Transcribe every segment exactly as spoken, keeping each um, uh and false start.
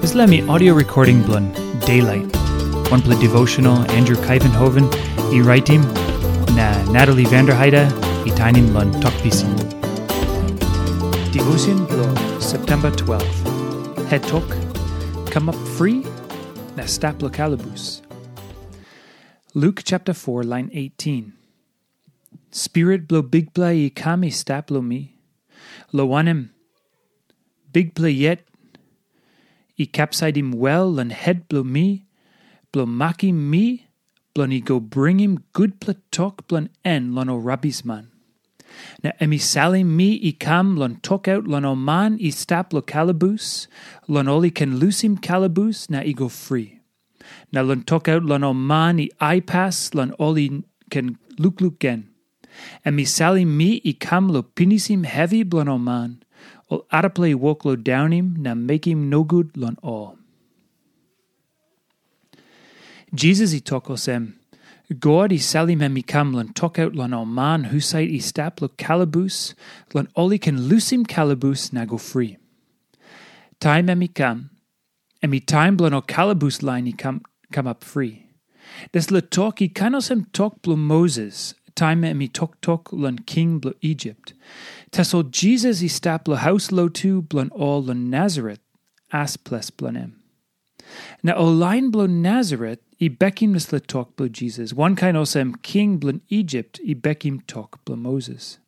Dispela mi audio recording bilong Daylight, wanpela devotional Andrew Kaivenhoven i raitim, na Natalie Vanderheide i tainim long Tok Pisin. Devotion bilong September twelve. Het tok, kamap fri, na stap lo kalabus. Luke chapter four, line eighteen. Spirit bilong Bikpela i kam i stap long mi, long wanem, Bikpela yet i kapsaitim wel long het bilong mi, bilong makim mi, bilong i go bringim gutpela tok bilong en long ol rabisman. Na em i salim mi i kam long tokaut long ol man i stap long kalabus, long ol i ken lusim kalabus na i go fri. Na long tokaut long ol man i aipas long ol i ken lukluk gen. Em i salim mi i kam long pinisim hevi bilong ol man, ol arapela i wok long daunim na mekim nogut long ol. Jisas i tok olsem, God i salim em i kam long tokaut long ol man husat i stap long kalabus, long ol i ken lusim kalabus na go fri. Taim em i kam, em i taim bilong ol kalabus lain i kam kamap fri. Dispela tok i kain olsem tok bilong Moses, taim em i toktok long king bilong Isip. Tasol Jisas i stap long haus lotu bilong ol long Nasaret, as ples bilong em. Na ol lain bilong Nasaret i bekim dispela tok bilong Jisas, wankain olsem king bilong Isip i bekim tok bilong Moses.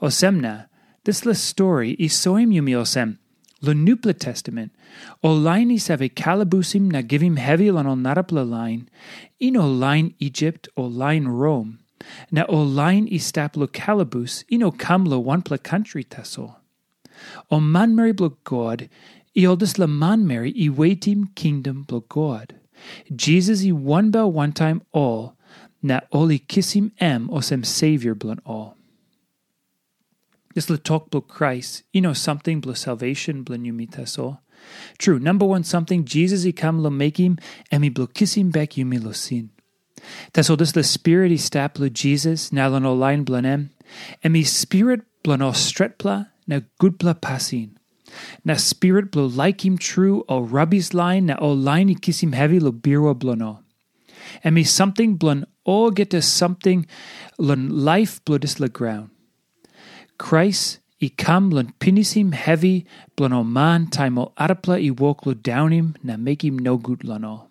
Olsem na, dispela stori i soim yumi olsem, long Nupela Testamen, ol lain i save kalabusim na givim hevi long ol narapela lain, i no lain Isip o lain Rom, na ol lain i stap long kalabus i no kam long wanpela kantri tasol. Ol manmeri bilong God, i ol dispela manmeri i wetim kingdom bilong God. Jisas i wanbel wantaim ol, na ol i kisim em olsem Savior bilong ol. Dispela tok bilong Krais i no samting bilong salvation bilong yumi tasol. Tru, namba wan samting Jisas i kam long mekim, em i bilong kisim bek yumi long sin. Tasol dispela Spirit i stap long Jisas na long ol lain bilong em, em i Spirit bilong ol stretpela na gutpela pasin. Na Spirit bilong laikim tru ol rabis lain na ol lain i kisim hevi long birua bilong ol. Em i samting bilong olgeta samting long laip bilong dispela graun. Krais i kam long pinisim hevi bilong ol man taim ol arapela i wok long daunim na mekim nogut long ol.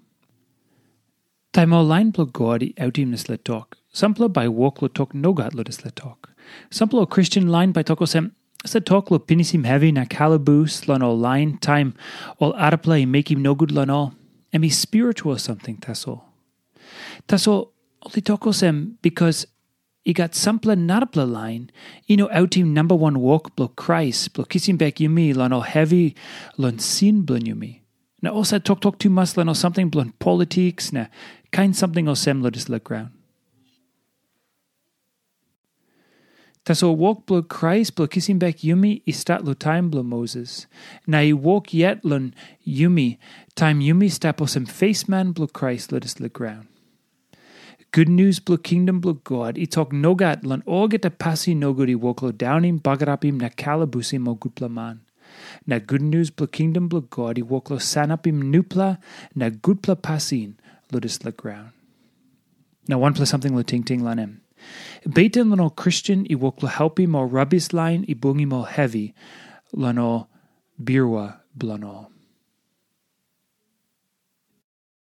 Taim ol lain bilong God i autim dispela tok, sampela bai wok long tok nogat long dispela tok. Sampela ol Kristen lain bai tok olsem, dispela tok long pinisim hevi na kalabus long ol lain taim ol arapela i mekim nogut long ol, em i spiritual samting tasol. Tasol ol i tok olsem, bikas i gat sampela narapela lain i no autim namba wan wok bilong Krais bilong kisim bek yumi long ol hevi long sin bilong yumi. Na ol save toktok tumas long ol samting bilong politiks na kain samting olsem long dispela graun. Tasol wok bilong Krais bilong kisim bek yumi i stat long taim bilong Moses, na i wok yet long yumi taim yumi stap olsem fesman bilong Krais long dispela graun. Gutnius bilong kingdom bilong God i tok nogat long olgeta pasin nogut i wok long daunim, bagarapim na kalabusim ol gutpela man. Na gutnius bilong kingdom bilong God i wok long sanapim nupela na gutpela pasin long dispela graun. Na wanpela samting long tingting long em. Beten long ol Kristen i wok long helpim ol rabis lain i bungim ol hevi long ol birua bilong ol.